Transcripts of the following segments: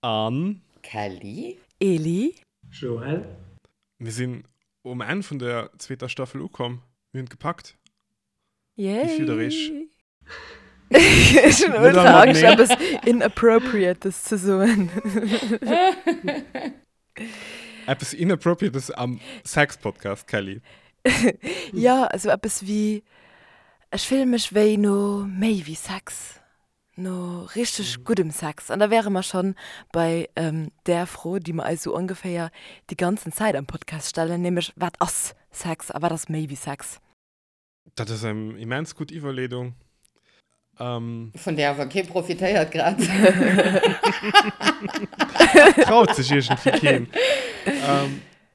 An. Kelly. Eli. Joël. Mir sinn um Enn vun der zweeter Staffel ukomm. Mir hunn et gepackt. Yay! Wéi fillt der iech? Ech hunn ultra Angscht, eppes Inappropriates ze soen. Eppes Inappropriates am Sex-Podcast, Kelly? Jo, esou eppes wéi, ech fille mech wéi no méi wéi Sex. No richteg guddem Sex. An da wäre mer schonn bei där Fro, déi mer eis esou ongeféier déi ganzen Zäit am Podcast stellen, nämlech, Wat ass Sex a wat ass méi wéi Sex? Dat ass eng immens gutt Iwwerleedung. Vun där awer kee profitéiert grad. Traut sech iergendwéi keen.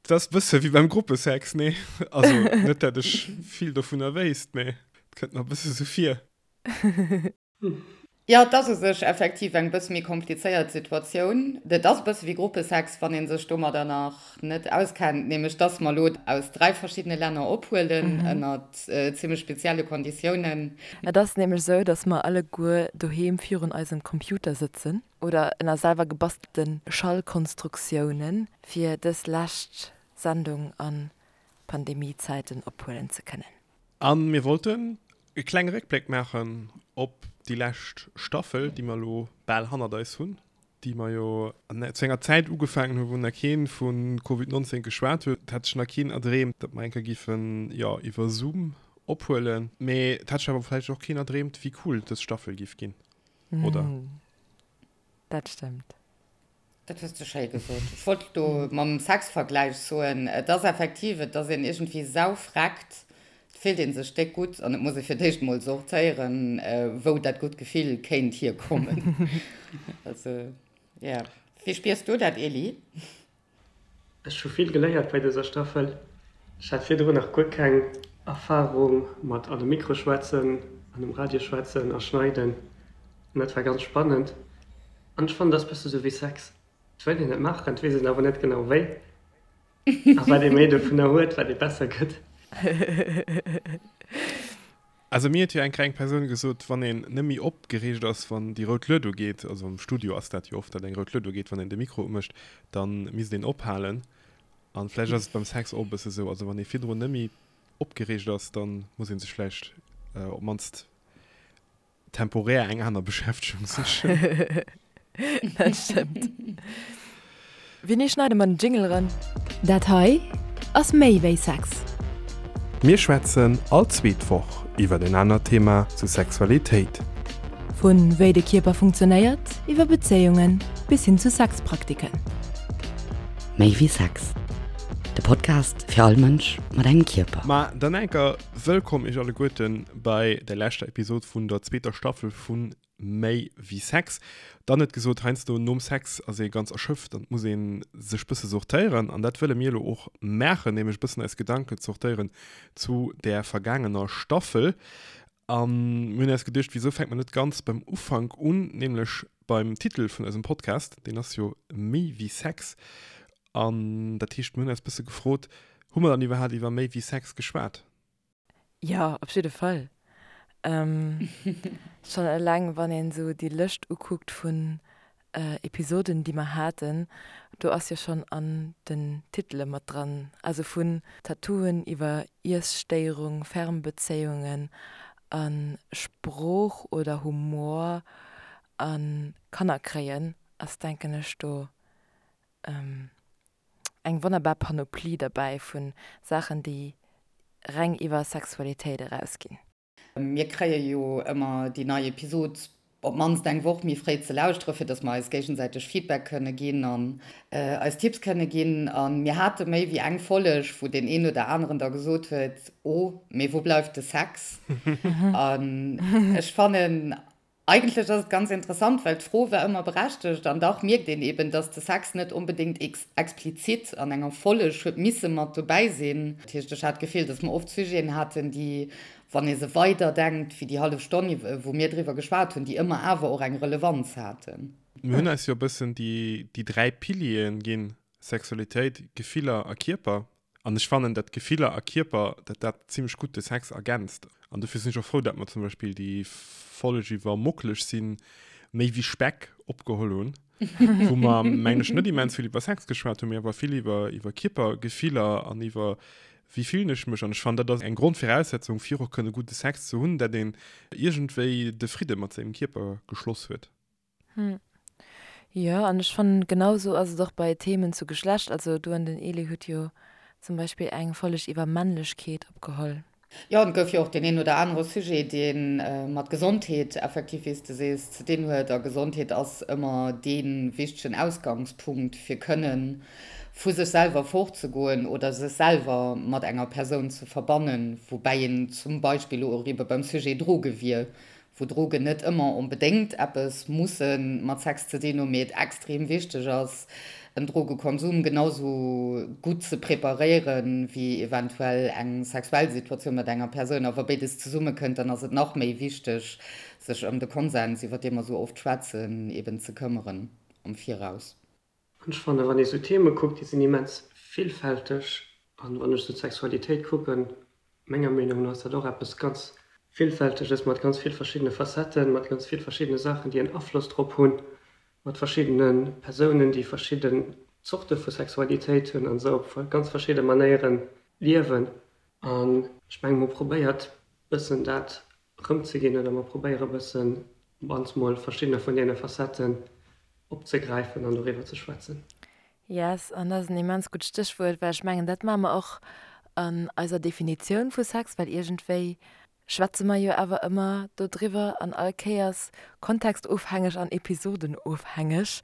Dat ass e bësse wéi beim Gruppesex, nee? Also net, dat ech vill dovunner wéisst, mee et kënnt mer e bësse sou vir. Jo, et ass u sech effektiv eng bësse méi komplizéiert Situatioun. Et ass e bësse wéi Gruppesex, wann ee sech domadder nach net auskennt, nämlech dass mer elo aus 3 verschiddene Länner ophuelen, ënnert zimmlech spezielle Konditiounen. Et ass nämlech esou, dass mer alleguer doheem virun eisem Computer sëtzen oder ënner selwer gebastelte Schallkonstruktiounen, fir dës lescht Sendung a Pandemiezäiten ophuelen ze kënnen. A mir wollten e klenge Réckbléck maachen op déi lescht Staffel, déi mer elo bal hannert eis hunn, déi mer jo zu enger Zäit ugefaangen hunn, wou nach kee vu Covid 19 geschwat huet. Et hat sech nach keen erdreemt, datt mer eng Kéier géifen, jo, iwwer Zoom ophuelen. Mee et hat sech awer vläicht och keen erdreemt, wéi cool dës Staffel géif ginn, oder? Dat stëmmt. Dat hues de schéi gesot. Ech wollt do mam Sexvergläich soen, et ass effektiv, et ass een iergendwéi saufreckt, et fillt ee sech déck gutt an et muss ee fir d'éischt mol sortéieren, wou dat gutt Gefill kéint hierkommen. Also, yeah. Wéi spiers du dat, Elie? Ech hu vill geléiert bei dëser Staffel. Ech hat virdrun nach guer keng Erfarung mat an e Mikro schwätzen, an um Radio schwätzen a schneiden. An dat war ganz spannend. An ech fannen, dat ass bësse sou wéi Sex, et wëllt een et maachen, et weess een awer net genau wéi. A wat ee méi dovunner huet, wat ee besser gëtt. Also mir huet jo eng kleng Persoun gesot, wann een net méi opgereegt ass, wann déi rout Lued ugeet, also am Studio ass dat jo oft, datt eng rout Lued ugeet, wann een de Mikro umécht, da misst een ophalen. An vläicht ass et beim Sex och e bësse sou, also wann ee virdrun net méi opgereegt ass, da muss ee sech vläicht op d'mannst temporär eng aner Beschäftegung sichen. Dat stëmmt. Wéini schneide mer den Jingle eran? Dat hei ass méi wéi Sex. Mir schwätzen all zweet Woch iwwer en anert Thema zu Sexualitéit. Vu wéi de Kierper funktionéiert, iwwer Bezéiungen bis hin zu Sexpraktiken. Méi wéi Sex, de Podcast fir all Mënsch mat engem Kierper. Ma dann enker wëllkomm iech alleguerten bei der leschter Episod vun der zweeter Staffel vun Méi wéi Sex. Dann huet gesot, heiansdo nom Sex ass ee ganz erschöpft an et muss ee sech bësse sortéieren. An dat wëlle mir elo och maachen, nämlech e bëssen eis Gedanken zortéieren zu där vergaangener Staffel. A mir hunn eis geduecht, wisou fänkt mer net ganz beim Ufank un, nämlech beim Titel vun eisem Podcast, deen ass jo Méi wéi Sex. An dat heescht, mir hunn eis bësse gefrot, hu mer dann iwwerhaapt iwwer méi wéi Sex geschwat? Jo, op jidde Fall. Schonn eleng wann een esou déi Lëscht ukuckt vun Episoden déi mer haten, do ass jo schonn an den Titele mat dran, also vun Tattooen iwwer Iesstéierung, Fernbezéiungen a Sprooch oder Humor a Kanner kréien ass denken ech do eng wonnerbar Panoplie derbäi vu Saachen, déi reng iwwer Sexualitéit erausginn. Mir kréie jo ëmmer déi nei Episod op d'mannst eng Woch méi fréi ze lauschteren, fir dass mer eis géigesäiteg Feedback kënne ginn an eis Tipps kënne ginn. A mir hate méi wéi eng Folleg, wou deen een oder aneren da gesot huet, Oh, mee wou bleift de Sex? An ech fannen, Eigentlech ass et ganz interessant, well d'Fro war ëmmer berechtegt an dach mierkt een eben, dass de Sex net onbedéngt explizit an enger Folleg huet misse mat dobäi sinn. Dat heescht, ech hat d'Gefill, dass mer oft Sujeten haten, déi, wann ee se weider denkt wéi déi hallef Stonn, wou mir driwwer geschwat hunn, déi ëmmer awer och eng Relevanz haten. Mir hunn eis jo e bëssen déi 3 Pilieren ginn, Sexualitéit, Gefiller a Kierper. An ech fannen, dat Gefiller a Kierper, dat dat zimlech gutt de Sex ergänzt. An dofir sinn ech och frou, dat mer zum Beispill déi Folg iwwer mockeleg sinn, méi wéi Speck opgeholl hunn. Wou mer, mengen ech, net immens vill iwwer Sex geschwat hunn, mee awer vill iwwer, iwwer Kierpergefiller an iwwer wéi fillen ech mech. An ech fannen, dat ass eng Grondviraussetzung, fir och kënne gudde Sex ze hunn, dat een iergendwéi de Fridde mat sengem Kierper geschloss huet. Hm. Jo, an ech fannen, genau esou ass et och bei Themen zu Geschlecht. Also du an den Elie hutt jo zum Beispill eng Folleg iwwer Männlechkeet opgeholl. Jo, an et gouf jo och deen een oder anere Sujet, dee mat Gesondheet effektiv, wéi s de sees, ze dinn huet. A Gesondheet ass ëmmer dee wichtegen Ausgangspunkt, fir kënne vu sech selwer fortzegoen oder sech selwer mat enger Persoun ze verbannen, woubäi een zum Beispill elo och ebe beim Sujet Droge wier, wou Drogen net ëmmer onbedéngt eppes musse mat Sex ze dinn hunn, mee et extrem wichteg ass, en Drogekonsum genau sou gutt ze preparéiere wéi eventuell eng sexuell Situatioun mat enger Persoun. A wa béides zesummekënnt, dann ass et nach méi wichteg, sech ëm de Konsens, iwwer dee mer sou oft schwätzen, eben ze këmmeren am Viraus. An ech fannen, wann ee sou Theme kuckt, déi sinn immens villfälteg. An wann ech sou d'Sexualitéit kucken, menger Meenung no ass dat och eppes ganz Villfälteges, mat ganz vill verschiddene Facetten, mat ganz vill verschiddene Saachen, déi en Afloss drop hunn, mat verschiddene Persounen, déi verschidden Zorte vu Sexualitéit hunn an esou op ganz verschidde Manéiere liewen. An ech menge mer probéiert bëssen dat erëmzeginn oder mer probéiere bëssen op mannst mol verschiddener vun deene Facetten opzegräifen an doriwwer ze schwätzen. Yes, an dat ass en immens gutt Stéchwuert, well ech mengen, dat maache mer och an eiser Definitioun vu Sex, well iergendwéi schwätze mer jo awer ëmmer dodriwwer an all Kéiers, kontextofhängeg an episodenofhängeg,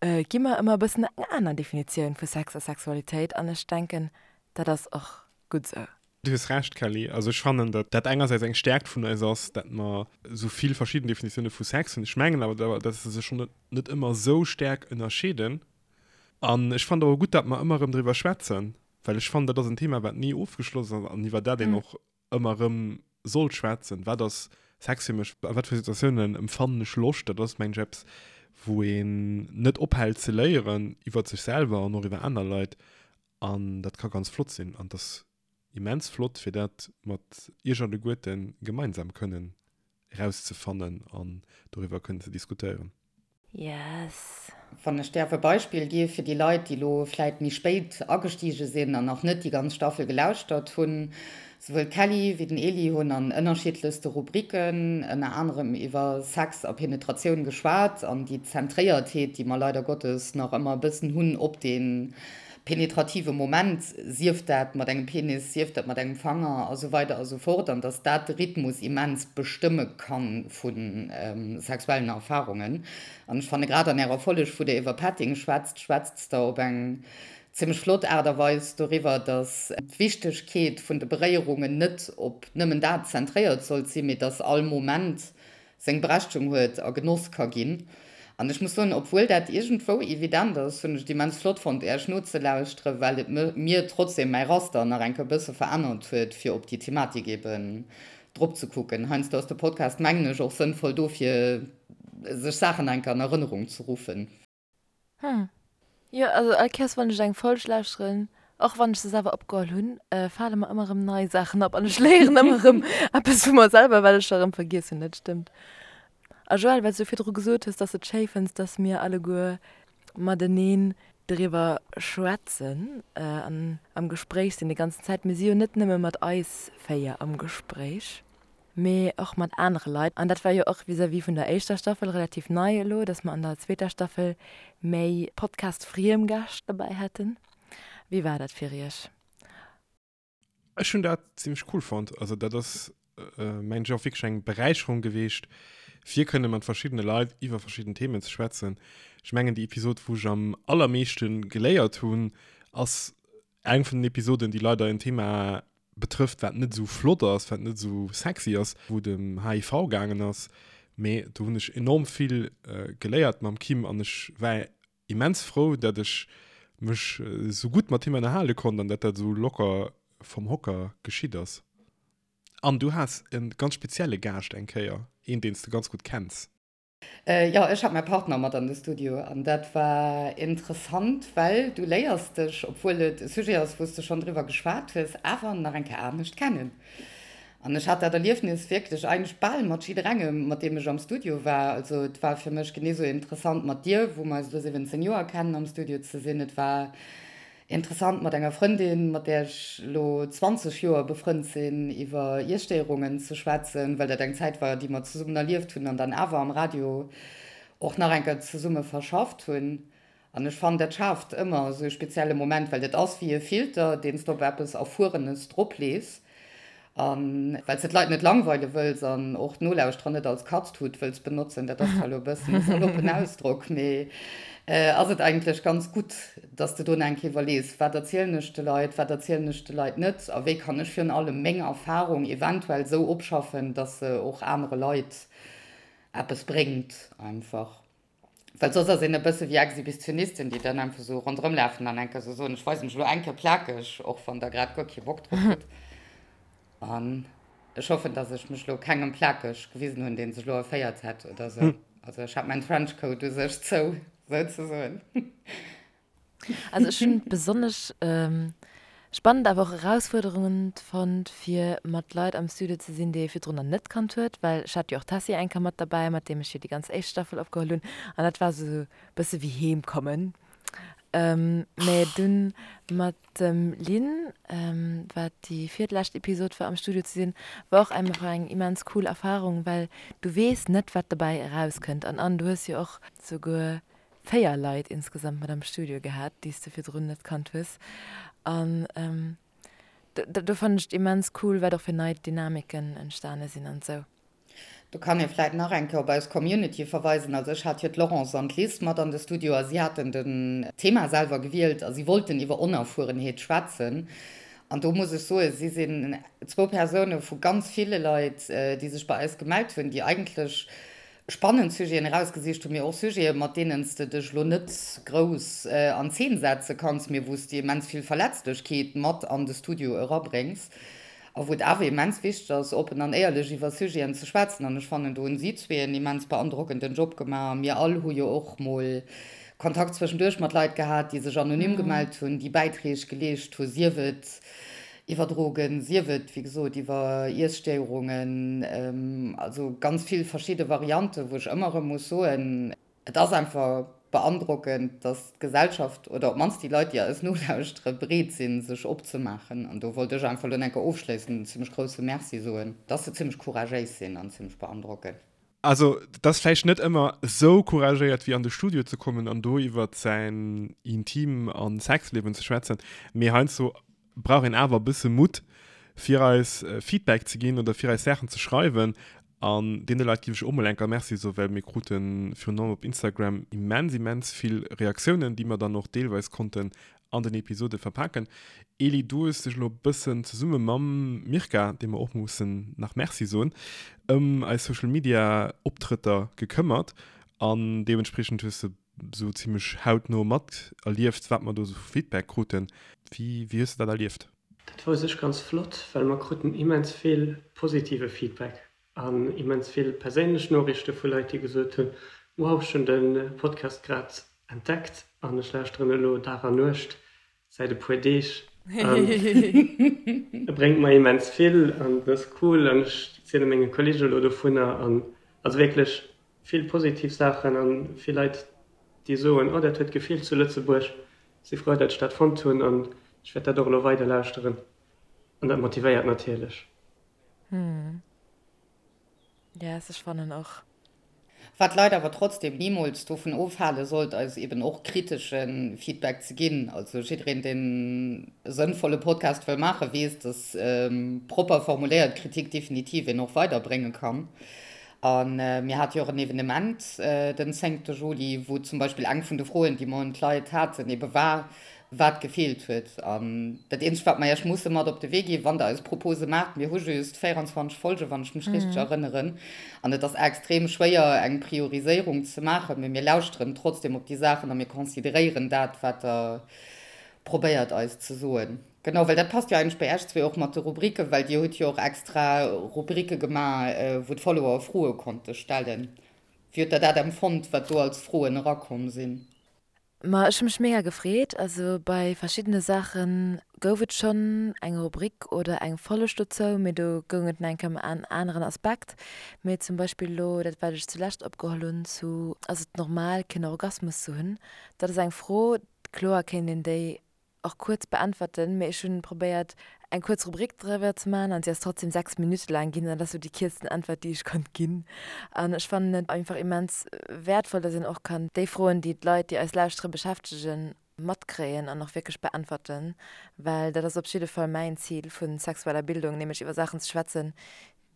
gi mer ëmmer e bëssen eng aner Definitioun vu Sex a Sexualitéit an ech denken, dat ass och gutt esou. Du hues Recht, Kelly. Also ech fannen, datt dat engersäits eng Stärkt vun eis ass, datt mer esou vill verschidden Definitioune vu Sex hunn. Ech mengen awer, datt se sech schonn net ëmmer esou staark ënnerscheeden. An ech fannen et awer gutt, datt mer ëmmer erëm driwwer schwätzen, well ech fannen, dat ass en Thema, wat ni ofgeschloss ass an iwwer dat een och ëmmer erëm sollt schwätzen. Wat ass Sex fir mech? A wat fir Situatiounen empfannen ech Loscht? Dat ass, mengen ech, eppes, wou een net ophält ze léieren iwwer sech selwer an och iwwer aner Leit. An dat ka ganz flott sinn. An et ass immens flott, fir dat mat Iech alleguerte gemeinsam kënnen erauszefannen an doriwwer kënnen ze diskutéieren. Yes. Wann ech däerf e Beispill gi fir déi Leit, déi elo vläit méi spéit agestige sinn an nach net déi ganz Staffel gelauschtert hunn, Souwuel d'Kelly wéi den Eli hunn an ënnerschiddlechste Rubriken, ënner anerem iwwer Sex a Penetratioun geschwat an déi Zentréiertheet, déi mer leider Gottes nach ëmmer e bëssen hunn op dee penetrative Moment, sief dat mat engem Penis, sief dat mat engem Fanger a sou weider a sou fort, an dass dat de Rhythmus immens bestëmme ka vu sexuellen Erfarungen. An ech fanne grad an Ärer Folleg, wou Der iwwer Petting schwätzt, schwätzt Der op eng zimmlech flott Aart a Weis doriwwer, dass d'Wichtegkeet vun de Beréierungen net op nëmmen dat zentréiert sollt sinn, mee dass all Moment seng Berechtegung huet a genoss ka ginn. An ech muss soen, obwuel dat iergendwou evident ass, hunn ech et immens flott fonnt, Äech nozelauschteren, well et mir trotzdem mäi Raster nach eng Kéier e bësse verännert huet, fir op déi Thematik eben drop ze kucken. Heiansdo ass de Podcast, mengen ech, och sënnvoll do, fir sech Saachen nach eng Kéier an Erënnerung ze ruffen. Hm. Jo, also all Kéiers wann ech eng Folg lauschteren, och wann ech se selwer opgeholl hunn, fale mer ëmmer erëm nei Saachen op an ech léieren ëmmer erëm eppes vu mer selwer, wat ech scho erëm vergiess hunn. Dat stëmmt. A Joël, well s du virdru gesot hues, dass s de et schéi fënns, dass mir alleguer mateneen driwwer schwätzen an am Gespréich sinn déi ganzen Zäit. Mir si jo net nëmme mat eis 4 am Gespréich. mee och mat anere Leit. An dat war jo och vis-à-vis vun der éischter Staffel relativ nei elo, dass mer an der zweeter Staffel méi Podcast-friem Gäscht dobäi haten. Wéi war dat fir iech? Ech hunn dat zimmlech cool fonnt. Also dat ass mengen ech och wierklech eng Beräicherung geweecht, fir kënne mat verschiddene Leit iwwer verschidden Themen ze schwätzen. Ech mengen déi Episod wou ech am allermeeschte geléiert hunn, ass eng vun den Episoden, déi leider en Thema betrëfft, wat net esou flott ass, wat net esou sexy ass, wou et ëm HIV gaangen ass. Mee do hunn ech enorm vill geléiert mam Kim an ech war immens frou, dat ech mech esou gutt mat him ënnerhale konnt an dat dat esou locker vom Hocker geschitt ass. An du has e ganz spezielle Gaascht eng Kéier, een, deen s de ganz gutt kenns. Jo, ech hat mäi Partner mat an de Studio an dat war interessant, well du léiers dech, obwuel et e Sujet ass, wou s de schonn driwwer geschwat hues, awer nach eng Kéier anescht kennen. An ech hat dat Erliefnis wierklech eigentlech bal mat jidderengem, mat deem ech am Studio war. Also et war fir mech genee sou interessant mat dir, wou mer eis elo 17 Joer kennen, am Studio ze sinn. Et war interessant mat enger Frëndin, mat där ech elo 20 Joer befrënnt sinn, iwwer Iesstéierungen ze schwätzen, well dat eng Zäit war, déi mer zesummen erlieft hunn an dann awer am Radio och nach eng Kéier zesumme verschafft hunn. An ech fannen, dat schaaft ëmmer esou e spezielle Moment, well dat ass wéi e Filter, deen s de op eppes Erfuerenes droplees. A well s de d'Leit net langweile wëlls an och d'Nolauschterer net als Katztut wëlls benotzen, dat ass zwar elo e bëssen e saloppen Ausdrock, mee ass et eigentlech ganz gutt, dass de do nach eng Kéier iwwerlees, Wat erzielen ech de Leit, wat erzielen ech de Leit net a wéi kann ech virun allem meng Erfarung eventuell esou opschaffen, dass se och anere Leit eppes bréngt einfach. Well soss ass een e bësse wéi Exhibitionisten, déi dann einfach esou ronderëm lafen an eng Kéier esou soen, ech weise mech elo eng Kéier plakeg, och wann der grad guer kee Bock drop hutt. An ech hoffen, datt ech mech elo kengem plakeg gewisen hunn, dee sech elo erféiert hätt oder esou. Also ech hat mäin Trenchcoat u sech zou, souzesoen. Also ech hunn et besonnesch spannend, awer och erausfuerderend fonnt, fir mat Leit am Studio ze sinn, déi ee virdrun nach net kannt huet, well ech hat jo och d'Tessy eng Kéier mat derbäi, mat deem ech jo déi ganz éischt Staffel opgeholl hunn, an dat war esou e bësse wéi heem kommen. Mä dunn mat dem Lynn, wat déi virlescht Episod war, am Studio ze sinn, war och einfach eng immens cool Erfarung, well du weess net, wat dobäi erauskënnt. An an du hues jo och souguer 4 Leit insgesamt mat am Studio gehat, déi s de virdrun net kannt hues. An do fannen ech et immens cool, wat och fir nei Dynamiken entstane sinn an esou. Do kann ee vläit nach eng Kéier op eis Community verweisen. Also ech hat jo d'Laurence an d'Liz mat an de Studio a si haten den Thema selwer gewielt a si wollten iwwer Onerfuerenheet schwätzen. An do muss ech soen, si sinn zwou Persoune vu ganz ville Leit, déi sech bei eis gemellt hunn, déi eigentlech spannend Sujeten erausgesicht hunn, mee och Sujeten, mat deenen s de dech elo net grouss an Zeen setze kanns, mee wou s de immens vill Verletzlechkeet mat an de Studio erabréngs a wou et awer immens wichteg ass, oppen an éierlech iwwer Sujeten ze schwätzen. An ech fannen, do hunn si zwee en immens beandrockenden Job gemaach. A mir all hu jo och mol Kontakt zwëschenduerch mat Leit gehat, déi sech anonym gemellt hunn, déi Bäitreeg geleescht hu, sief et Iwwer Drogen, sief et, wéi gesot, iwwer Iesstéierungen, also ganz vill verschidde Varianten, wou ech ëmmer erëm muss soen, et ass einfach beandrockend, dass d'Gesellschaft oder op d'mannst déi Leit, déi eis nolauschteren, bereet sinn, sech opzemaachen. An do wollt ech einfach elo enker ofschléissend en zimmlech grousse Merci soen, dass se zimmlech couragéis sinn an zimmlech beandrockend. Also, et ass vläicht net ëmmer esou couragéiert wéi an de Studio ze kommen an do iwwert säin Intim a Sexliewen ze schwätzen, mee heiansdo brauch een awer e bësse Mutt fir eis Feedback ze ginn oder fir eis Saachen ze schreiwen. An deene Leit géif ech och mol enker Merci soen, well mir krute virun allem op Instagram immens, immens vill Reaktiounen, déi mer dann och deelweis konnten an den Episode verpaken. Eli, du hues dech elo e bëssen zesumme mam Mirka, deem mer och mussen nach Merci soen, ëm eis Social Media Optrëtter gekëmmert an deementspriechend hues de sou zimmlech hautno mat erlieft, wat mer do sou vu Feedback kruten. Wéi wéi hues de dat erlieft? Dat war u sech ganz flott, well mer kruten immens vill positive Feedback an immens vill perséinlech Noriichte vu Leit, déi gesot hunn, Wow, ech hunn de Podcast grad entdeckt an ech lauschteren elo Dag an Nuecht säit e puer Deeg an e bréngt mer immens vill an et ass cool an ech ziele menge Kolleege elo dovunner an also wierklech vill positiv Saachen an vill Leit, déi soen, oh dat huet gefeelt zu Lëtzebuerg, si frou, datt ech dat fonnt hunn an ech wäert dat och elo weider lauschteren an dat motivéiert natierlech. Hm. Yes, ech fannen och. Wat d'Leit awer trotzdem nimools dovun ofhale sollt, eis eben och kritesche Feedback ze ginn. Also jiddereen, deen e sënnvolle Podcast wëll maachen, weess, dass propper formuléiert Kritik definitiv een och weiderbrénge kann. A mir hate jo och en Evenement den zéngte Juli, wou zum Beispill eng vun de Froen, déi mer un d'Leit haten, ebe war, wat gefeelt huet. An dat eenzegt, wat mer Iech musse mat op de Wee ginn, wann Der eis Propose maacht, mir hu just 24 Folgen, wann ech mech richteg erënneren, an et ass extrem schwéier, eng Prioriséierung ze maachen, mee mir lauschteren trotzdem op déi Saachen a mir consideréieren dat, wat Der probéiert eis ze soen. Genau, well dat passt jo eigentlech bei Iech zwee och mat de Rubriken, well Dir hutt jo och extra Rubrike gemaach, wou d'Follower Froe konnte stellen. Wéi hutt Der dat empfonnt, wat do als Froen erakomm sinn? Ma ech hu mech mega gefreet. Also bei verschiddene Saache gouf et schonn eng Rubrik oder eng Folleg dozou, mee do goung et nach eng Kéier ëm en aneren Aspekt. Mee zum Beispill elo dat wat ech zulescht opgeholl hunn zu ass et normal keen Orgasmus ze hunn? Dat ass eng Fro, kloer kéint een déi och kuerz beäntwerten, mee ech hunn probéiert eng kuerz Rubrik driwwer ze maachen an si ass trotzdem 6 Minutte laang ginn an dat ass sou déi kierzten Äntwert déi ech konnt ginn. An ech fannen et einfach immens wäertvoll, dass een och kann déi Froen déi d'Leit déi eis lauschtere beschäftegen matkréien an och wierklech beäntwerten, well dat ass op jidde Fall mäin Zil vu sexueller Bildung, nämlech iwwer Saachen ze schwätzen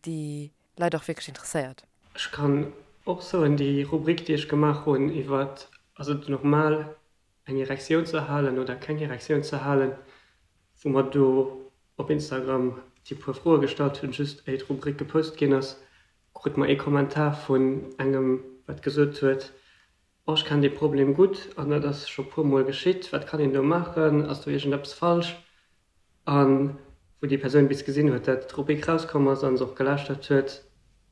déi Leit och wierklech interesséiert. Ech kann och soen, déi Rubrik déi ech gemaach hunn iwwer ass et normal eng Erektioun ze halen oder keng Erektioun ze halen, wou mer do op Instagram déi puer Froe gestallt hunn, just éi d'Rubrik gepost ginn ass, krute mer ee Kommentar vun engem, wat gesot huet, Oh, ech kennen dee Problem gutt an dat ass scho puer mol geschitt, wat kann een do maachen, ass do iergendeppes falsch? A wou déi Persoun bis gesinn huet, dat d'Rubrik rauskomm ass a se och gelauschtert huet,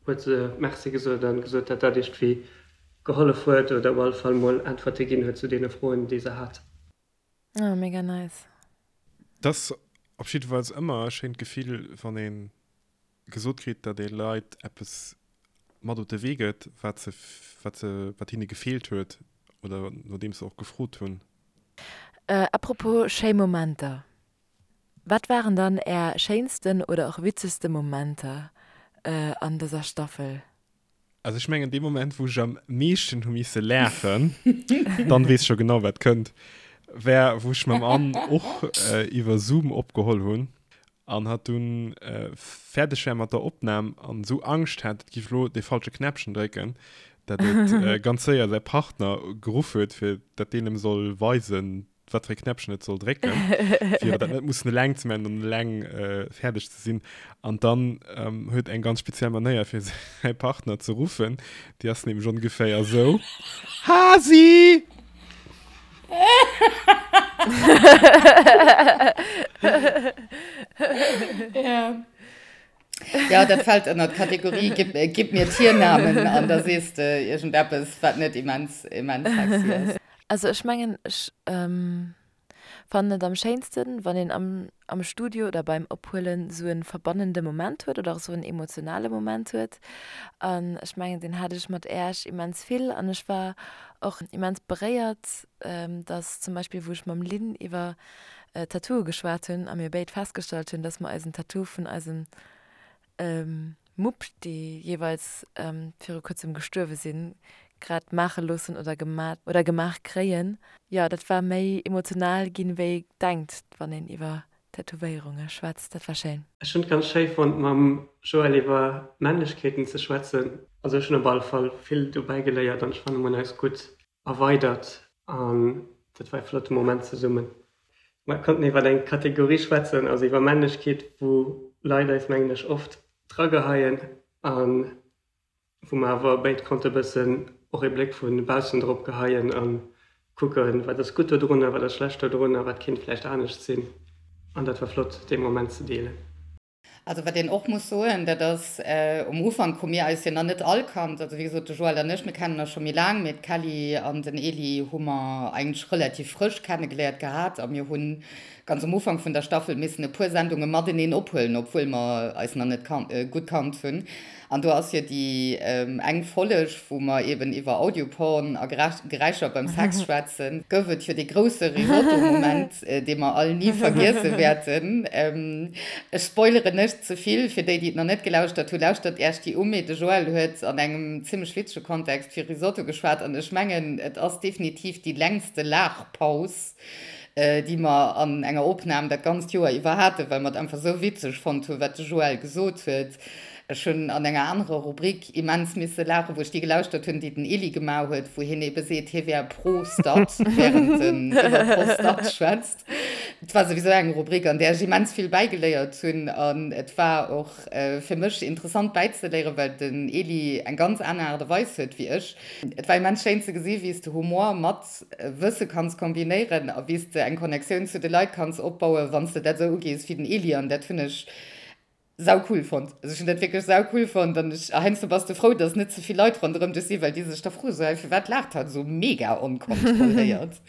huet se Merci gesot an gesot, dat dat iergendwéi gehollef huet oder op alle Fall mol Äntwerte ginn huet zu deene Froen, déi se hat. Oh, mega nice. Et ass op jiddefalls ëmmer e schéint Gefill, wann ee gesot kritt, datt ee Leit eppes mat op de Wee gëtt, wat se, wat se, wat hinne gefeelt huet oder nodeems se och gefrot hunn. Apropos schéi Momenter, Wat waren dann är schéinsten oder och witzegste Momenter an dëser Staffel? Also ech mengen dee Moment wou ech am meeschten hu misse laachen, dann weess ech scho genau wat kënnt, war wou ech mam Anne och iwwer Zoom opgeholl hunn an hatt dunn fäerdeg war mat der Opnam an esou Angscht hat et giff elo dee falsche Knäppchen drécken, dat et ganz séier säi Partner geruff huet fir dat deen em soll weisen wat fir e Knäppchen et soll drécken, fir dat net mussen eleng ze maachen an eleng fäerdeg ze sinn. An dann huet eng ganz speziell Manéier fir säi Partner ze ruffen, déi ass nämlech ongeféier esou, Hasi! Ja. Ja, dat fält ënner d'Kategorie gib, gib mir Tiernamen an da sees de iergendeppes, wat net immens, immens sexy ass. Also ech mengen, ech fannen et am schéinsten, wann een am am Studio oder beim Ophuelen esou e verbannende Moment huet oder och esou en emotionale Moment huet. An ech mengen, deen hat ech mat Äerch immens vill an ech war och immens beréiert, dass zum Beispill wou ech mam Lynn iwwer Tattooe geschwat hunn a mir béid festgestallt hunn, dass mer eisen Tattoo vun eisem Mupp, déi jeeweils viru kuerzem gestuerwe sinn, grad maache loossen oder gemat oder gemaach kréien. Jo, dat war méi emotional ginn, wéi ee denkt, wann een iwwer Tätowéierunge schwätzt. Dat war schéin. Ech hunn et ganz schéi fonnt, mam Joël iwwer Männlechkeeten ze schwätzen. Also ech hunn op alle Fall vill dobäi geléiert an ech fannen, mer hunn eis gutt erweidert an dat war e flotte Moment zesummen. Mer konnten iwwer eng Kategorie schwätzen, also iwwer Männlechkeet, wou Leit eis, mengen ech, oft drageheien a wou mer awer béid konnte bëssen och ee Bléck vu baussen drop geheien a kucken, wat ass gutt dodrun a wat ass schlecht dodrun a wat kéint vläicht anescht sinn. An dat war flott, dee Moment ze deelen. Also wat een och muss soen, dat ass, um Ufank hu mir eis jo nach net all kannt. Also wéi gesot, de Joël an ech, mir kennen eis scho méi laang, mee d'Kelly an den Elie hu mer eigentlech relativ frësch kennegeléiert gehat a mir hu ganz um Ufank vun der Staffel missen e puer Sendunge mateneen ophuelen, obwuel mer eis nach net gutt kannt hunn. An do ass jo déi eng Folleg, wou mer eben iwwer Audioporn a Geräischer beim Sex schwätzen, gouf et jo dee grousse Risotto-Moment, dee mer all ni vergiesse wäerten. Ech spoileren net ze vill, fir déi, déi et nach net gelauschtert hunn, lauschtert Iech déi u. Mee de Joël huet an engem zimmlech witzege Kontext fir Risotto geschwat an ech mengen, et ass definitiv déi längste Laachpaus, déi mer an enger Opnam dat ganzt Joer iwwer haten, well mer et einfach esou witzeg fonnt hunn, wat de Joël gesot huet. Ech hunn an enger anerer Rubrik immens misse laachen, wou ech déi gelauschtert hunn, déi den Elie gemaach huet, wou hien ebe seet, hie wär pro Stat, während en iwwer Prostat schwätzt. Et war souwisou eng Rubrik, an där ech immens vill bäigeléiert hunn. An et war och fir mech interessant bäizeléieren, well den Elie eng ganz aner Aart a Weis huet wéi ech. Et war immens schéin ze gesi wéi s de Humor mat Wësse kanns kombinéieren a wéi s de eng Connectioun zu de Leit kanns opbauen, wann s de dat esou ugees wéi den Elie. An dat hunn ech. Sau cool fonnt. Also ech hunn dat wierklech sau cool fonnt an ech, heiansdo bass de frou, dass net ze vill Leit ronderëm dech sinn, well déi sech da froen, sou, hey, firwat laacht hatt esou mega onkontrolléiert?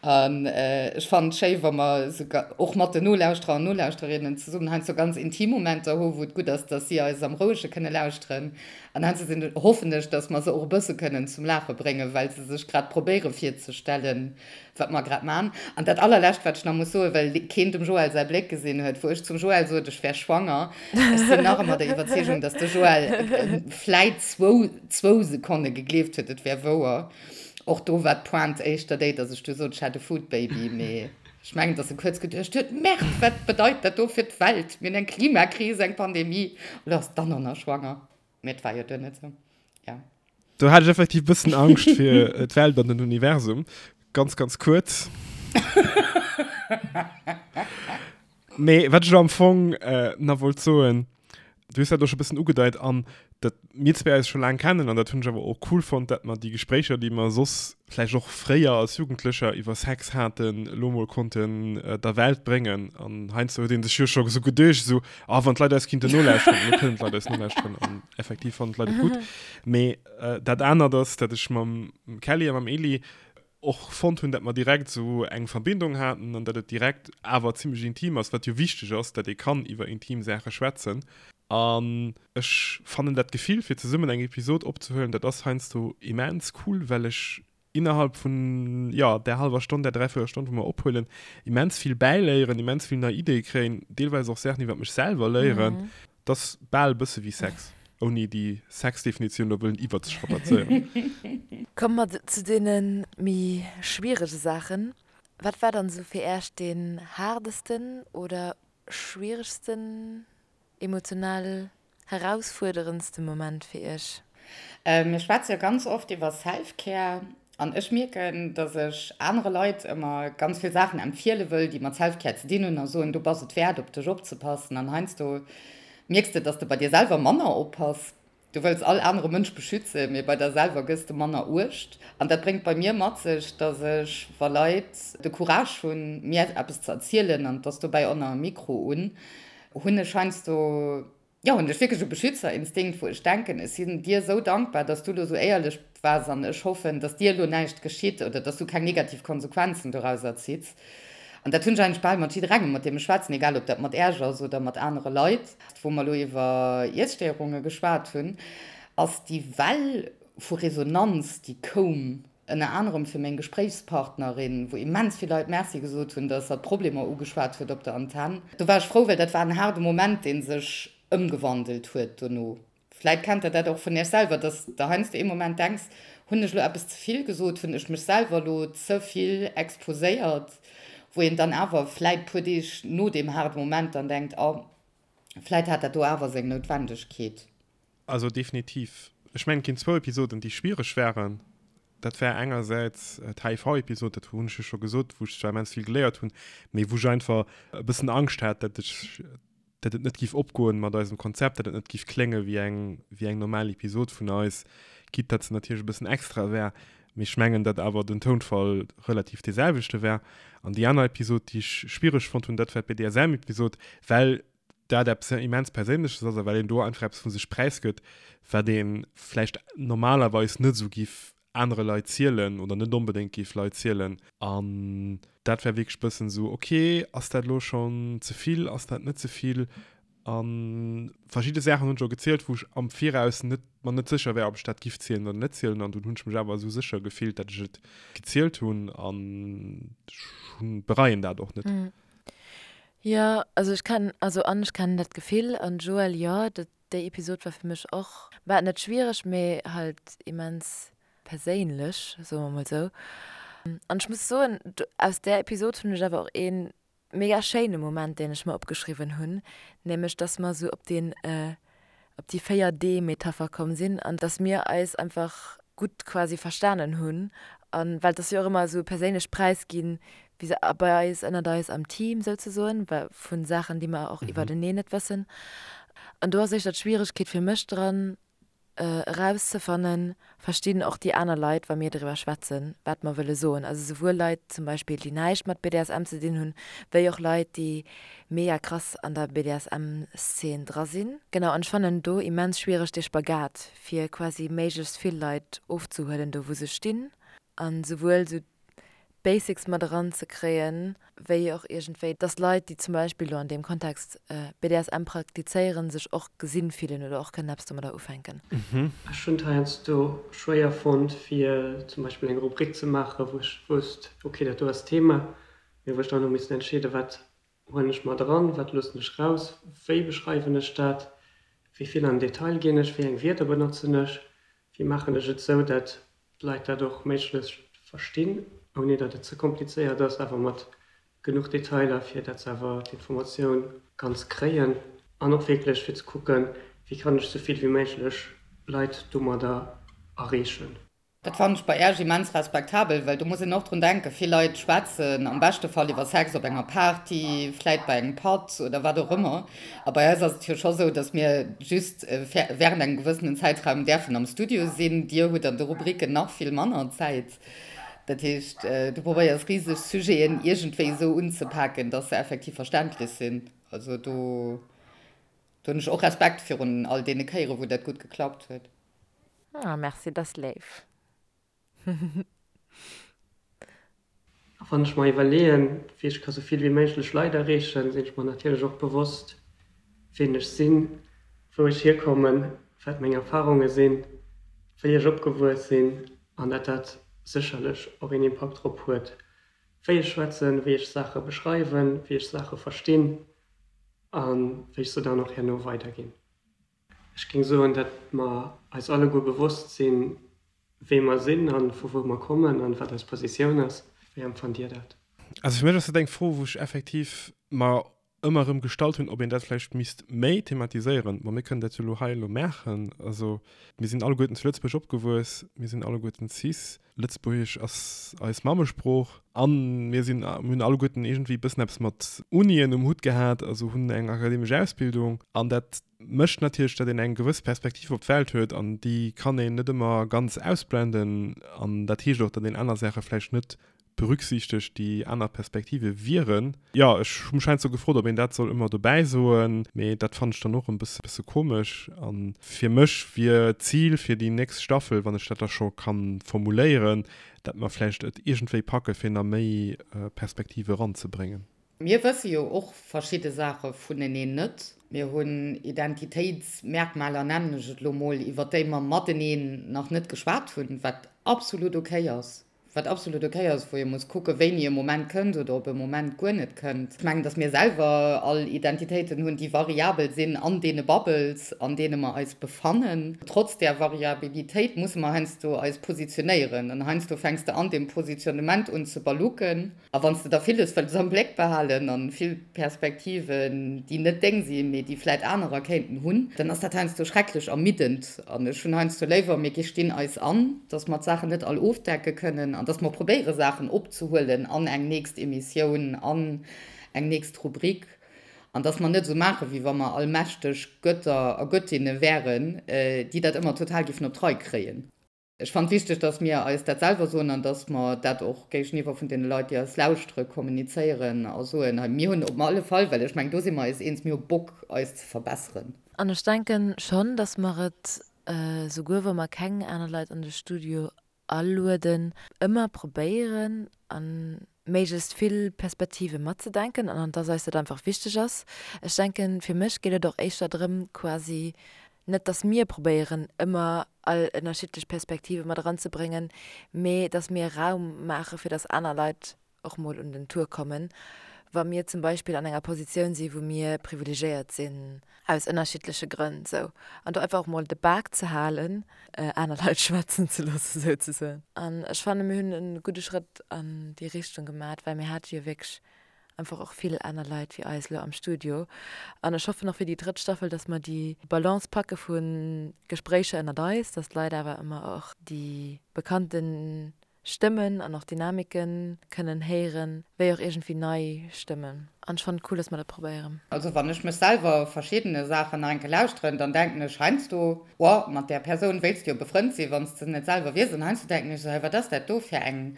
An ech fannen et schéi, wa mer esou och mat den Nolauschterer an Nolauschtererinnen zesummen heiansdo ganz intim Momenter hu wou et gutt ass, dass si eis am Rouege kënne lauschteren. An heiansdo sinn, hoffen ech, dass mer se och e bësse kënnen zum Laache bréngen, well se sech grad probéiere virzestellen, wat mer grad man. An dat allerlescht, wat ech nach muss soen, well keen dem Joël säi Bléck gesinn huet, wou ech zum Joël sot, ech wär schwanger, ech sinn nach ëmmer der Iwwerzeegung, dass de Joël vläit zwou, zwou Sekonne gegleeft huet, et wär wouer. Och do war d'Pointe éischter déi, dass ech du sot, ech hätt e Foodbaby, mee ech mengen, dass e kuerz geduecht huet, Merde, wat bedeit dat do fir d'Welt, mir hunn eng Klimakris, eng Pandemie, elo ass d'Anna nach schwanger. Mee et war jo duer net sou. Ja. Do hat ech effektiv bëssen Angscht fir d'Welt an den Universum. Ganz, ganz kuerz. Mee wat ech elo am Fong äh, nach wollt soen, du hues dat och scho bëssen ugedeit an dat mir zwee eis scho laang kennen an dat hunn ech awer och cool fonnt, dat mer déi Gespréicher, déi mer soss vläicht och fréier als Jugendlecher iwwer Sex haten, elo mol konnten der Welt bréngen. An heiansdo huet ee sech jo scho esou geduecht, esou, ah, wann d'Leit eis kinnten nolauschteren. Elo kënnen d'Leit eis nolauschteren an effektiv fannen d'Leit et gutt. Mee dat anert ass, dat ech mam Kelly a mam Eli och fonnt hunn, dat mer direkt esou eng Verbindung haten an dat et direkt awer zimmlech intim ass, wat jo wichteg ass, dat ee kann iwwer intim Saache schwätzen. An ech fannen dat Gefill fir zesummen eng Episod opzehuelen, dat ass heiansdo immens cool, well ech innerhalb vun, jo, där hallwer Stonn, där dräiviertel Stonn, wou mer ophuelen, immens vill bäiléieren, immens vill nei Ideeë kréien, deelweis och Saachen iwwer mech selwer léieren. Dat ass bal e bësse wéi Sex, ouni déi Sexdefinitioun elo wëllen iwwerzestrapazéieren. Komme mer zu deene méi schwierege Saachen. Wat war dann esou fir Äech deen haardesten oder schwieregsten Emotional herausfuerderendste Moment fir Iech? Mir schwätze jo ganz oft iwwer Self-Care an ech mierken, dass ech anere Leit ëmmer ganz vill Saachen empfiele wëll, déi mat Self-Care ze dinn hunn a soen, du bass et wäert, op dech opzepassen. An heiansdo mierks de, dass de bei dir selwer manner oppass. Du wëlls all anere Mënsch beschützen, mee bei der selwer gëss de manner Uecht. An dat bréngt bei mir mat sech, dass ech, wa Leit de Courage hunn, mir eppes ze erzielen, an et ass dobäi och nach e Mikro un, hunn ech heiansdo, jo, hunn ech wierklech e Beschützerinstinkt, wou ech denken, ech sinn dir esou dankbar, dass du elo esou éierlech waars an ech hoffen, dass dir elo näischt geschitt oder dass du keng negativ Konsequenzen dorauser zitts. An dat hunn ech eigentlech bal mat jidderengem, mat deem ech schwätzen, egal ob dat mat Äerch ass oder mat anere Leit. Wou mer elo iwwer Iesstéierunge geschwat hunn, ass déi Well vu Resonanz, déi koum, ënner anerem fir meng Gespréichspartnerin, wou immens vill Leit Merci gesot hunn, datt hatt d'Problemer ugeschwat huet op der Antenn. Do war ech frou, well dat war en haarde Moment, dee sech ëmgewandelt huet dono. Vläit kennt der dat och vun iech selwer, dass der heiansdo ee Moment denks, hunn ech elo eppes ze vill gesot, hunn ech mech selwer elo ze vill exposéiert, wou een dann awer vläit puer Deeg no deem haarde Moment dann denkt, oh, vläit hat dat do awer seng Noutwendegkeet. Also definitiv. Ech mengen, et ginn zwou Episoden, déi schwiereg waren. Dat war engersäits d'HIV-Episod, dat hunn ech jo scho gesot, wou ech zwar immens vill geléiert hunn, mee wou ech einfach e bëssen Angscht hat, dat ech dat et net giff opgoen mat eisem Konzept, dat et net giff klénge wéi eng wéi eng normal Episod vun eis, quitte dat se natierlech e bëssen extra war, mee ech mengen dat awer den Tounfall relativ dee selwechte war. An déi aner Episod, déi ech schwiereg fonnt hunn, dat war d'BDSM-Episod, well dat eppes immens Perséinleches ass a well een do einfach eppes vu sech präisgëtt, wat ee vläicht normalerweis net esou giff anere Leit zielen oder net onbedéngt géif Leit zielen. An dat war wierklech bëssen esou, ok, ass dat elo schonn ze vill, ass dat net ze vill? A verschidde Saachen hunn ech och gezielt, wou ech am Viraus net, mer net sécher war, ob ech dat giff zielen oder net zielen. An dunn hunn ech mech awer esou sécher gefillt, dat ech et gezielt hunn an ech hunn, bereien dat och net. Jo, also ech kennen, also an ech kennen dat Gefill an Joël, jo, dat Déi Episod war fir mech och, bah, net schwiereg, mee halt immens perséinlech, soe mer mol sou. An ech muss soen, aus där Episod hunn ech awer och ee mega schéine Moment, deen ech mer opgeschriwwen hunn, nämlech dass mer sou op deen, op déi 4 D-Metapher komm sinn an dass mir eis einfach gutt quasi verstanen hunn. An well et ass jo och ëmmer esou e perséinlecht Präisginn, wéi se bei eis, ënnert eis am Team souzesoen, well vu Saachen, déi mer och iwwerteneen net wëssen. An do ass éischter d'Schwieregkeet fir mech dran. Erauszefannen, verstinn och déi aner Leit, wa mir driwwer schwätzen, wat mer wëlle soen. Also souwuel Leit zum Beispill, déi näischt mat BDSM ze dinn hunn, wéi och Leit, déi mega krass an der BDSM-Szene dra sinn. Genau, an ech fannen do immens schwiereg dee Spagat, fir quasi méiglechst vill Leit ofzehuelen do wou se stinn, an souwuel sou d'Basics mat eran ze kréien, wéi och iergendwéi, dass Leit, déi zum Beispill elo an deem Kontext BDSM praktizéieren, sech och gesinn fillen oder och kënnen eppes domadder ufänken. Ech hunn et heiansdo schwéier fonnt, fir zum Beispill eng Rubrik ze maachen, wou ech wousst, ok, dat do ass d'Thema, mee wou ech dann hu missen entscheeden, wat huelen ech mat eran, wat loossen ech raus, wéi beschreiwen ech dat, wéi vill an den Detail ginn ech, wéi eng Wierder benotzen ech, wéi maachen ech et sou, dat d'Leit dat och méiglechst verstinn, ouni datt et ze komplizéiert ass, awer mat genuch Detailer, fir datt se awer d'Informatioun ganz kréien. An och wierklech fir ze kucken, wéi kann ech sou vill wéi méiglech Leit domadder erreechen. Dat fannen ech bei Äerch immens respektabel, well do muss een och drun denken, vill Leit schwätzen am beschte Fall iwwer Sex op enger Party, vläit bei engem Patt oder wat och ëmmer. A bei eis ass et jo scho sou, datt mir just während engem gewëssenen Zäitraum däerfen am Studio sinn. Dir hutt an de Rubriken nach vill manner Zäit. Dat heescht, du probéiers riseg Sujeten iergendwéi esou unzepaken, datt se effektiv verständlech sinn. Also do hunn ech och Respekt virun all deene Kéiere wou dat gutt geklappt huet. Ah merci, dat ass léif. A wann ech mer iwwerleeën, wéi ech ka sou vill wéi méiglech Leit erreechen, sinn ech mer natierlech och bewosst, ween ech sinn, wou ech hierkommen, wat meng Erfarunge sinn, wéi ech opgewuess sinn an dat dat sécherlech och een Impakt drop huet, wéi ech schwätzen, wéi ech Saache beschreiwen, wéi ech Saache verstinn a wéi ech se dann och herno weiderginn. Ech géing soen, datt mer eis alleguer bewosst sinn, wee mer sinn a vu wou mer kommen an wat eis Positioun ass. Wéi empfannt Dir dat? Also fir mech ass dat eng Fro, wou ech effektiv mer ëmmer erëm gestallt hunn, ob een dat vläicht misst méi thematiséieren. Bon, mir kënnen dat jo elo hei elo maachen. Also mir sinn alleguerten zu Lëtzebuerg opgewuess, mir sinn alleguerten cis, Lëtzebuergesch ass eis Mammesprooch an mir sinn, mir hunn alleguerten iergendwéi e bëssen eppes mat Unien um Hutt gehat, also hunn eng akademesch Ausbildung an dat mécht natierlech, datt een eng gewëss Perspektiv op d'Welt huet an déi kann een net ëmmer ganz ausblenden an dat heescht och, datt een aner Saache vläicht net berücksichtegt, déi aner Perspektive wieren. Jo, ech hu mech heiansdo gefrot, ob een dat soll ëmmer dobäi soen, mee dat fannen ech dann och e bësse komesch. A fir mech wier d'Zil fir déi nächst Staffel, wann ech dat da scho ka formuléieren, dat mer vläicht et iergendwéi packe fir nach méi Perspektive eranzebréngen. Mir wësse jo och verschidde Saache vuneneen net. Mir hunn Identitéitsmerkmaler, nennen ech et elo mol, iwwer déi mer mateneen nach net geschwat hunn, wat absolut okay ass. Wat absolut ok ass, wou ee muss kucken, wéini e Moment kënnt oder ob e Moment guer net kënnt. Ech mengen, datt mir selwer all Identitéiten hunn, déi variabel sinn an deene Bubbles, an deene mer eis befannen. Trotz där Variabilitéit musse mer heiansdo eis positionéieren. An heiansdo fänks de an deem Positionnement un ze balucken. A wann s de da villes wëlls am Bléck behalen an vill Perspektiven, déi net deng sinn, mee déi vläit anerer kéinten hunn, dann ass dat heiansdo schrecklech ermiddend. An ech hunn heiansdo léiwer, mir gestinn eis an, dass mer d'Saachen net all ofdecke kënnen an dass mer probéiere Saachen opzehuelen an eng nächst Emissioun, an eng nächst Rubrik, an dass mer net esou maachen, wéi wa mer allmächteg Götter a Göttinne wären, déi dat ëmmer total géifen op d'Rei kréien. Ech fannen et wichteg, dass mir eis dat selwer soen an dass mer dat och géigeniwwer vun deene Leit, déi eis lauschtere, kommunizéieren a soen, hei, mir hunn op alle Fall, well ech mengen, do si mer eis eens, mir hu Bock, eis ze verbesseren. An ech denken schonn, dass mer et, souguer wa mer keng aner Leit an de Studio alueden, ëmmer probéieren an méiglechst vill Perspektive matzedenken an dass eis dat einfach wichteg ass. Ech denken, fir mech geet et och éischter drëm, quasi net, dass mir probéieren, ëmmer all ënnerschiddlech Perspektive mat eranzebréngen, mee dass mir Raum maache fir dass aner Leit och mol un den Tour kommen, wa mir zum Beispill an enger Positioun si wou mir privilegéiert sinn, aus ënnerschiddleche Grënn sou, an do einfach och mol de Bak ze halen, aner Leit schwätzen ze loossen souzesoen. An ech fannen, mir hunn e gudde Schrëtt an déi Richtung gemat, well mir hate jo wierklech einfach och vill aner Leit wéi eis elo am Studio. An ech hoffen och fir déi drëtt Staffel, dass mer déi Balance packe vu Gespréicher ënnert eis, dass d'Leit awer ëmmer och déi bekannten. Stëmmen an och Dynamiken kënnen héieren, wéi och iergendwéi nei Stëmmen. An ech fannen et cool, dass mer dat probéieren. Also wann ech mech selwer verschiddene Saachen nach eng Kéier lauschteren, dann denken ech heiansdo, Wow, mat där Persoun wéilts de jo befrënnt sinn, wann s de net selwer wiers. An heiansdo denken ech esou, Hey, wat ass dat do fir eng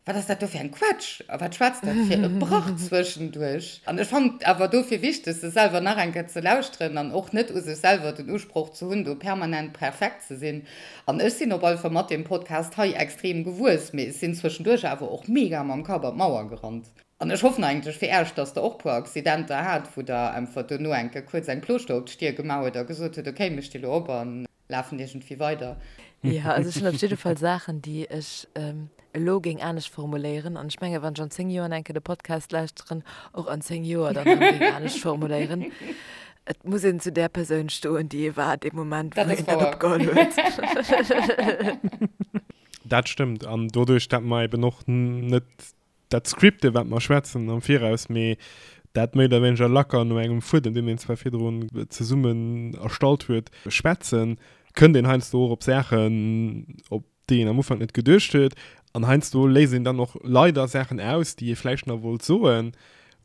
Wat ass dat do fir eng Quatsch? A wat schwätzt dat fir e Brach zwëschenduerch? An ech fannen et awer dofir wichteg, sech selwer nach eng Kéier ze lauschteren an och net u sech selwer den Usproch ze hunn, do permanent perfekt ze sinn. An ech sinn op alle Fall mat deem Podcast hei extrem gewuess, mee ech sinn zwëschenduerch awer och mega mam Kapp an d'Mauer gerannt. An ech hoffen eigentlech fir Äech, dass Der och puer Accidenter hat, wou Der einfach duerno eng Kéier kuerz eng Plooschter op d'Stier gemaach hutt a gesot hutt, okay, mir sti lo op an Lafen iergendwéi weider. Jo, also ech hunn op jidde Fall Saachen, déi ech elo géing anescht formuléieren. An ech menge wann ech an 10 Joer nach eng Kéier de Podcast lauschteren, och an 10 Joer dann erëm géing anescht formuléieren. Et muss een zu där Persoun stoen, déi ee war dee Moment, wou een dat opgeholl huet. Dat stëmmt. An doduerch, dat mer eben och net dat scripte wat mer schwätzen am Viraus, mee dat méi oder wéineger lacker no engem Fuedem, deen een zwar virdrun zesummen erstallt huet, schwätzen, kënnt een heiansdo och op Saachen, op déi een am Ufank net geduecht huet. An heiansdo léisst een dann och leider Saachen aus, déi ee vläicht nach wollt soen,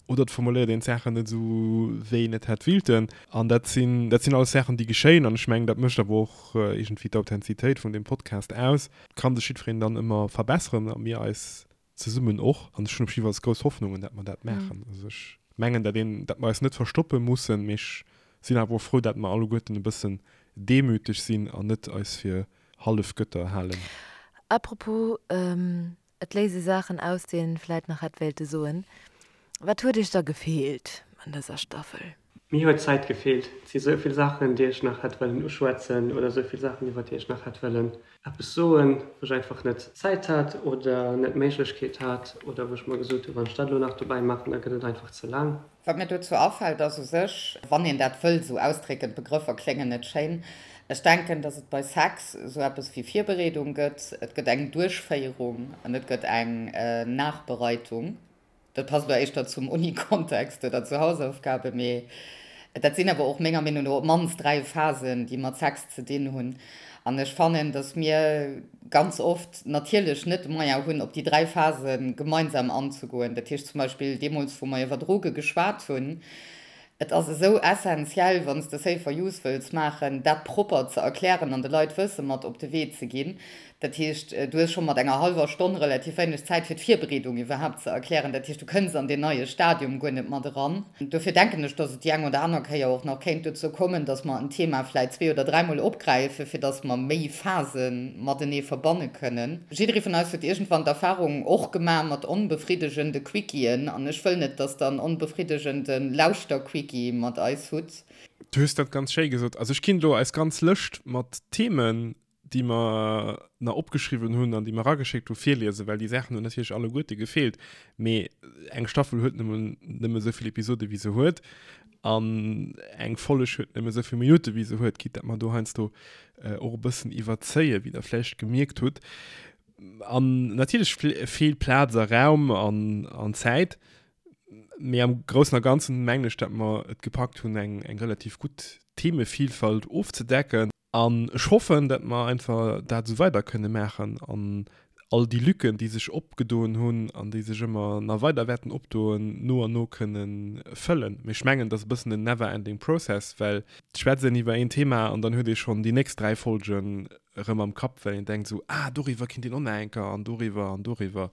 oder et formuléiert een d'Saachen net esou, wéi een et hätt wilten. An dat sinn, dat sinn alles Saachen, déi geschéien. An ech mengen, dat mécht awer och iergendwéi d'Authentizitéit vun deem Podcast aus. Et ka sech jiddwereen dann ëmmer verbesseren a mir eis zesummen och. An ech hunn op jiddefalls grouss Hoffnungen, dat mer dat maachen. Also ech mengen, dat een, dat mer eis net verstoppe mussen, mee ech sinn awer och frou, dat mer alleguerten e bëssen demüteg sinn an net eis fir hallef Götter halen. Apropos, et léise Saachen aus, déi een vläit nach hätt wéilte soen. Wat huet iech da gefeelt an dëser Staffel? Mir huet d'Zäit gefeelt. Et si sou vill Saachen, déi ech nach hätt wëllen uschwätzen oder sou vill Saachen, iwwer déi ech nach hätt wëllen eppes soen, wou ech einfach net d'Zäit hat oder net d'Méiglechkeet hat oder wou ech mer gesot hu, wann ech dat elo nach dobäi maachen, da gëtt et einfach ze laang. Wat mir dozou afält, ass u sech, wann een dat wëll esou ausdrécken, d'Begrëffer kléngen net schéin, ech denken, datt et bei Sex esou eppes wéi Virbereedung gëtt, et gëtt eng Duerchféierung an et gëtt eng Nachbereitung. Dat passt elo éischter zum Uni-Kontext oder zu Hausaufgaben, mee dat sinn awer och menger Meenung no op d'mannst 3 Phasen, déi mat Sex ze dinn hunn. An ech fannen, datt mir ganz oft natierlech net de Moyen hunn, op déi 3 Phase gemeinsam anzegoen. Dat heescht zum Beispill deemools, wou mer iwwer Droge geschwat hunn, Et ass esou essentiell, wann s de Safer Use wëlls maachen, dat propper ze erklären an de Leit Wësse mat op de Wee ze ginn. Dat heescht, du hues scho mat enger hallwer Stonn relativ wéineg Zäit, fir d'Virbereedung iwwerhaapt ze erklären. Dat heescht, du kënns an deen neie Stadium guer net mat eran. Dofir denken ech, dass et déi eng oder aner Kéier och nach kéint dozou kommen, dass mer en Thema vläicht zwee oder dräimol opgräifen, fir dass mer méi Phase matenee verbanne kënnen. Jidderee vun eis huet iergendwann d'Erfahrung och gemaach mat onbefriddegende Quickiën an ech wëll net, dass der en onbefriddegende Lauschter-Quickie mat eis hutt. Du hues dat ganz schéi gesot. Also ech kinnt elo eis ganz Lëscht mat Themen, déi mer na opgeschriwwen hunn an déi mer erageschéckt hu virliesen, well déi Saachen hunn natierlech alleguerte gefeelt. Mee eng Staffel huet nëmmen nëmme esou vill Episode wéi se huet an eng Folleg huet nëmme esou vill Minutte wéi se huet, quitte dat mer do heiansdo och e bëssen iwwerzéien, wéi der vläicht gemierkt hutt. An natierlech feelt Plaz a Raum an, an Zäit, mee am Groussen a Ganzen mengen ech, dat mer et gepackt hunn, eng, eng relativ gutt Themevielfalt ofzedecken. An ech hoffen, dat mer einfach dat esou weider kënne maachen an all déi Lücken, déi sech opgedoen hunn an déi sech ëmmer nach weider wäerten opdoen, no an no kënne fëllen. Mee ech mengen, et ass e bëssen en never ending process, well et schwätzt een iwwer een Thema an dann huet ee schonn déi nächst 3 Folgen erëm am Kapp, well een denkt esou, ah doriwwer kinnt een och nach eng Kéier an doriwwer an doriwwer.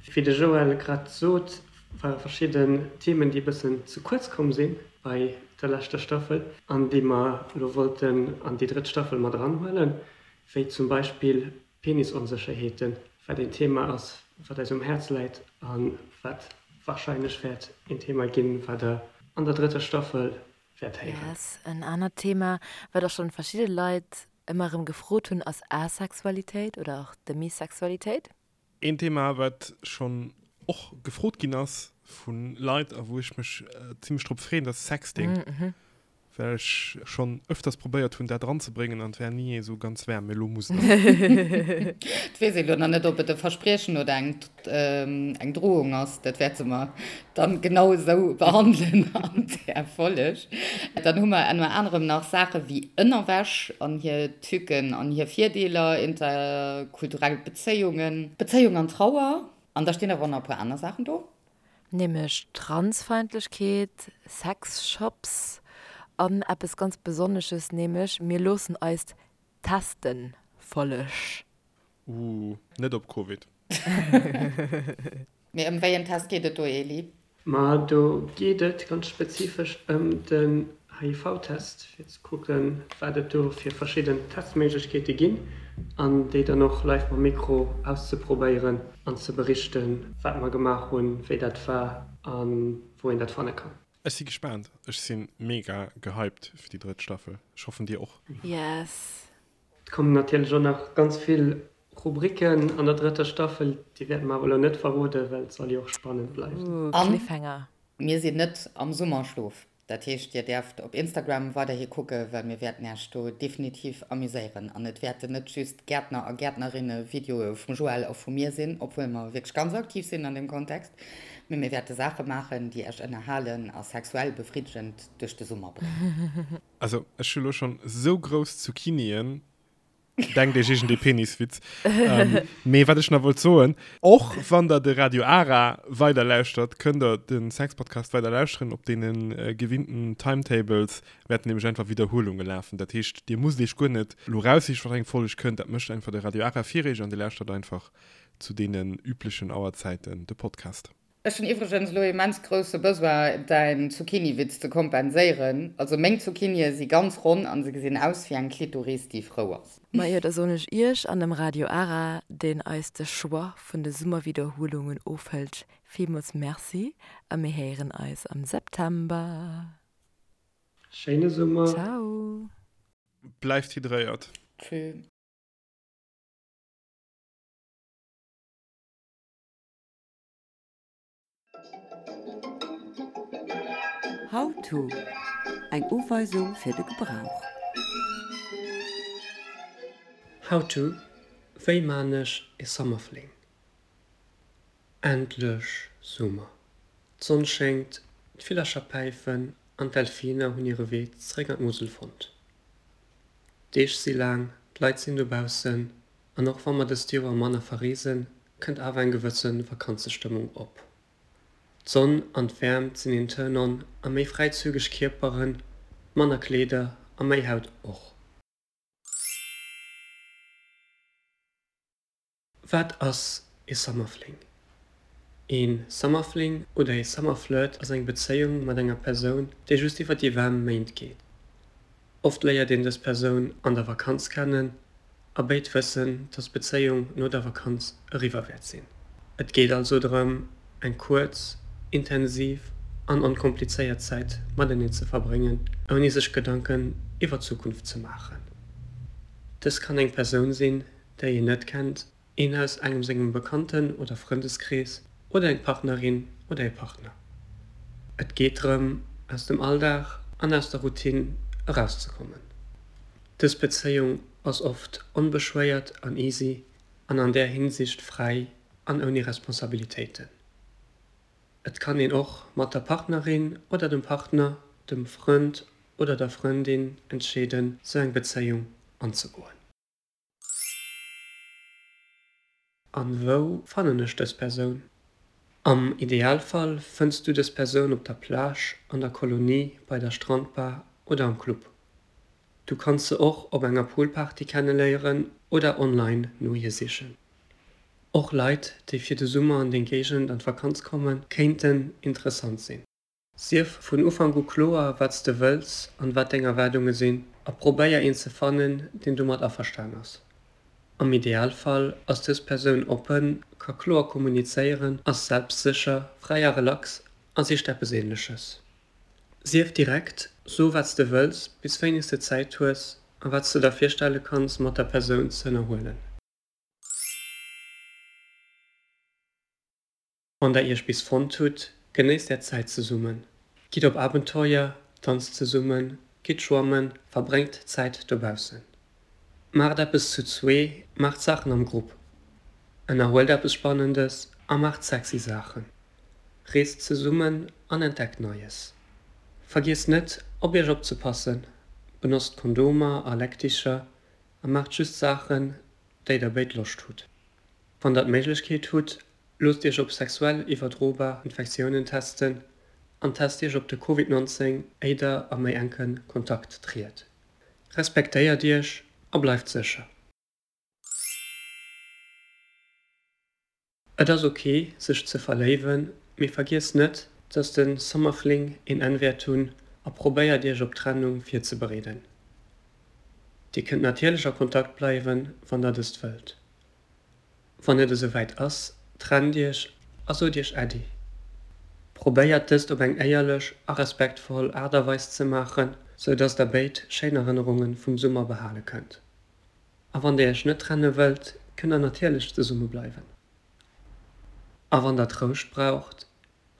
Wéi de Joël grad sot, ware verschidden Themen, déi e bëssen ze kuerz komm si bei der leschter Staffel an déi mer elo wollten an déi drëtt Staffel mat eranhuelen, wéi zum Beispill Penisonsécherheeten, wat een Thema ass, wat eis um Häerz läit a wat warscheinlech wäert een Thema ginn, wat der an der drëtter Staffel wäert héieren. Yes, en anert Thema, wat och schonn verschidde Leit ëmmer erëm gefrot hunn, ass Asexualitéit oder och Demisexualitéit. Een Thema, wat schonn och gefrot ginn ass vu Leit a wou ech mech zimmlech drop freeën, dat ass Sexting. Well ech schonn öfters probéiert hunn dat eranzebréngen an et war ni esou ganz waarm, mee elo muss et. Et weess ee lo nach net, ob et e Verspriechen oder eng eng Drohung ass. Dat wäerte mer dann genau esou behandelen an där Folleg. Dann hu mer ënner anerem nach Saache wéi Ënnerwäsch an hir Tücken an hir Virdeeler, interkulturell Bezéiungen, Bezéiung an Trauer. An da stinn awer och nach e puer aner Saachen do. Nämlech Transfeindlechkeet, Sexshops an eppes ganz Besonnesches, nämlech mir loossen eis testen Folleg. Ooh, net op Covid. Mee ëm wéi en Test geet et do, Eli? Ma do geet et ganz spezifesch ëm den HIV-Test, fir ze kucken, wat et do fir verschidden Testméiglechkeete ginn an déi dann och live mam Mikro auszeprobéieren an ze berichten, wat mer gemaach hunn, wéi dat war a wou een dat fanne kann. Ech si gespaant. Ech si mega gehypt fir déi drëtt Staffel. Ech hoffen dir och. Yes. Et kommen natierlech och nach ganz vill Rubriken an der drëtter Staffel, déi wäerte mer awer elo net verroden, well et soll jo och spannend bleiwen. Ooh, Cliffhanger. A mir sinn net am Summerschlof. Dat heescht, dir däerft op Instagram weiderhi kucken, well mir wäerten Äech do definitiv amuséieren. An et wäerten net just Gäertner a Gäertnerinne-Videoe vum Joël a vu mir sinn, obwuel mer wierklech ganz aktiv sinn an deem Kontext, mee mir wäerte Saache maachen, déi Äech ënnerhalen a sexuell befriddegend duerch de Summer bréngen. Also ech hu lo schon sou grouss Zucchinien, denkt iech iergend ee Peniswitz. Mee wat ech nach wollt soen, och wann der de Radio Ara weider lauschtert, kënnt der de Sexpodcast weider lauschteren. Op deene gewinnten Timetables wäerten nämlech einfach Widderhuelunge lafen. Dat heescht, dir musst iech guer net lo raussichen, wat eng Folg kënnt. Dat mécht einfach de Radio Ara fir iech an dir lauschtert einfach zu deenen üblechen Auerzäiten de Podcast. Ech hunn iwwregens elo immens grousse Besoin däin Zucchini-Witz ze kompenséieren. Also meng Zucchinie si ganz ronn an se gesinn aus wéi eng Klitoris déi frou ass. Majo, da soen ech iech an dem Radio Ara, deen eis de Choix vun de Summerwiederhuelungen ofhëlt, villmools Merci a mir héieren eis am September. Schéine Summer! Ciao! Bleift hydréiert! Tschü. How to, Eng Uweisung fir de Gebrauch. How to, Wéi maan ech ee Summerfling? Endlech Summer! D'Sonn schéngt, d'Villercher päifen an d'Delfiner hunn hire Wee zréck an d'Musel fonnt. D'Deeg si laang, d'Leit sinn dobaussen an och wa mer dëst Joer manner verreesen, kënnt awer eng gewësse Vakanzestëmmung op. D'Sonn an d'Wäermt sinn een Turn-on a méi fräizügeg Kierperen, manner Kleeder a méi Haut och. Wat ass ee Summerfling? Ee Summerfling oder ee Summerflirt ass eng Bezéiung mat enger Persoun, déi just iwwer déi waarm Méint geet. Oft léiert een dës Persoun an der Vakanz kennen a béid wëssen, dass d'Bezéiung no der Vakanz eriwwer wäert sinn. Et geet also drëm, eng kuerz, intensiv an onkomplizéiert Zäit mateneen ze verbréngen, ouni sech Gedanken iwwer d'Zukunft ze maachen. Dës kann eng Persoun sinn, déi een net kennt, een aus engem sengem Bekannten oder Frëndeskrees oder eng Partnerin oder ee Partner. Et geet drëm, aus dem Alldag an aus der Routine erauszekommen. Dës Bezéiung ass oft onbeschwéiert an easy an an där Hinsicht fräi an ouni Responsabilitéiten. Et kann een och mat der Partnerin oder dem Partner, dem Frënd oder der Frëndin entscheeden, sou eng Bezéiung anzegoen. An wou fannen ech dës Persoun? Am Idealfall fënns du dës Persoun op der Plage, an der Kolonie, bei der Strandbar oder am Club. Du kanns se och op enger Poolparty kenneléieren oder online no hir sichen. Och Leit, déi fir de Summer an deng Géigend an d'Vakanz kommen, kéinten interessant sinn. Sief vun Ufank u kloer, wat s de wëlls an wat deng Erwaardunge sinn a probéier een ze fannen, deen domat averstan ass. Am Idealfall ass dës Persoun oppen, ka kloer kommunizéieren, ass selbstsécher, fräi a relax a sicht eppes Ähnleches. Sief direkt, so wat s de wëlls, bis wéini s de Zäit hues a wat s de der virstelle kanns mat der Persoun ze ënnerhuelen. Wann der iech bis fonnt hutt, genéisst är Zäit zesummen. Gitt op Abenteuer, danzt zesummen. Gitt schwammen, verbréngt Zäit dobaussen. Maacht eppes zu zwee, maacht Saachen am Grupp. Ënnerhuelt eppes Spannendes a maacht sexy Saachen. Reest zesummen an entdeckt Neies. Vergiesst net, op iech opzepassen, benotzt Kondomer a Leckdicher a maacht just Saachen, déi der béid Loscht hutt. Wann der d'Méiglechkeet hutt, loosst iech op sexuell iwwerdrobar Infektiounen testen an test iech op de Covid 19 éi der a méi enke Kontakt triet. Respektéiert iech a bleift sécher. Et ass ok sech ze verléiwen, mee vergiesst net, dass de Summerfling een Enn wäert hunn a probéiert iech op d'Trennung virzebereeden. Dir kënnt natierlech a Kontakt bleiwen, wann der dëst wëllt. Wann et esou wäit ass, trennt iech a sot iech Äddi. Probéiert dëst op eng éierlech a respektvoll Aart a Weis ze maachen, sou dass der béid schéin Erënnerunge vum Summer behale kënnt. A wann der iech net trenne wëllt, kënnt der natierlech zesumme bleiwen. A wann der Trouscht braucht,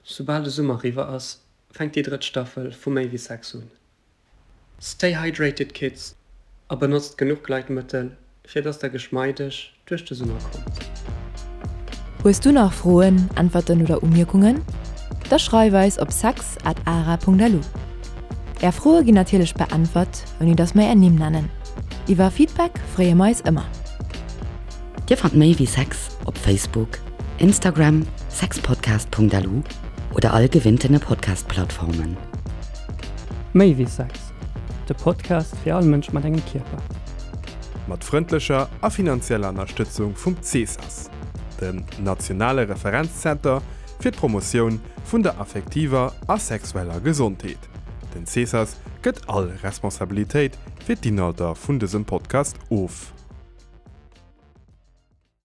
soubal de Summer eriwwer ass, fänkt déi drëtt Staffel vu Méi wéi Sex un. Stay hydrated kids a benotzt genuch Gleitmëttel fir dass der geschmeideg duerch de Summer kommt. Hues du nach Froen, Äntwerten oder Umierkungen? Da schreif eis op sex at ara.lu. Är Froe ginn natierlech beäntwert, ouni dass mer är Nimm nennen. Iwwer Feedback freeë mer eis ëmmer. Dir fannt méi wéi Sex op Facebook, Instagram, sexpodcast.lu oder all gewinntene Podcast-Plattformen. Méi wéi Sex, de Podcast fir all Mënsch mat engem Kierper. Mat frëndlecher a finanzieller Ënnerstëtzung vum CESAS, dem nationale Referenzzenter fir d'Promotioun vun der affektiver a sexueller Gesondheet. Den CESAS gëtt all Responsabilitéit fir d'Inhalter vun dësem Podcast of.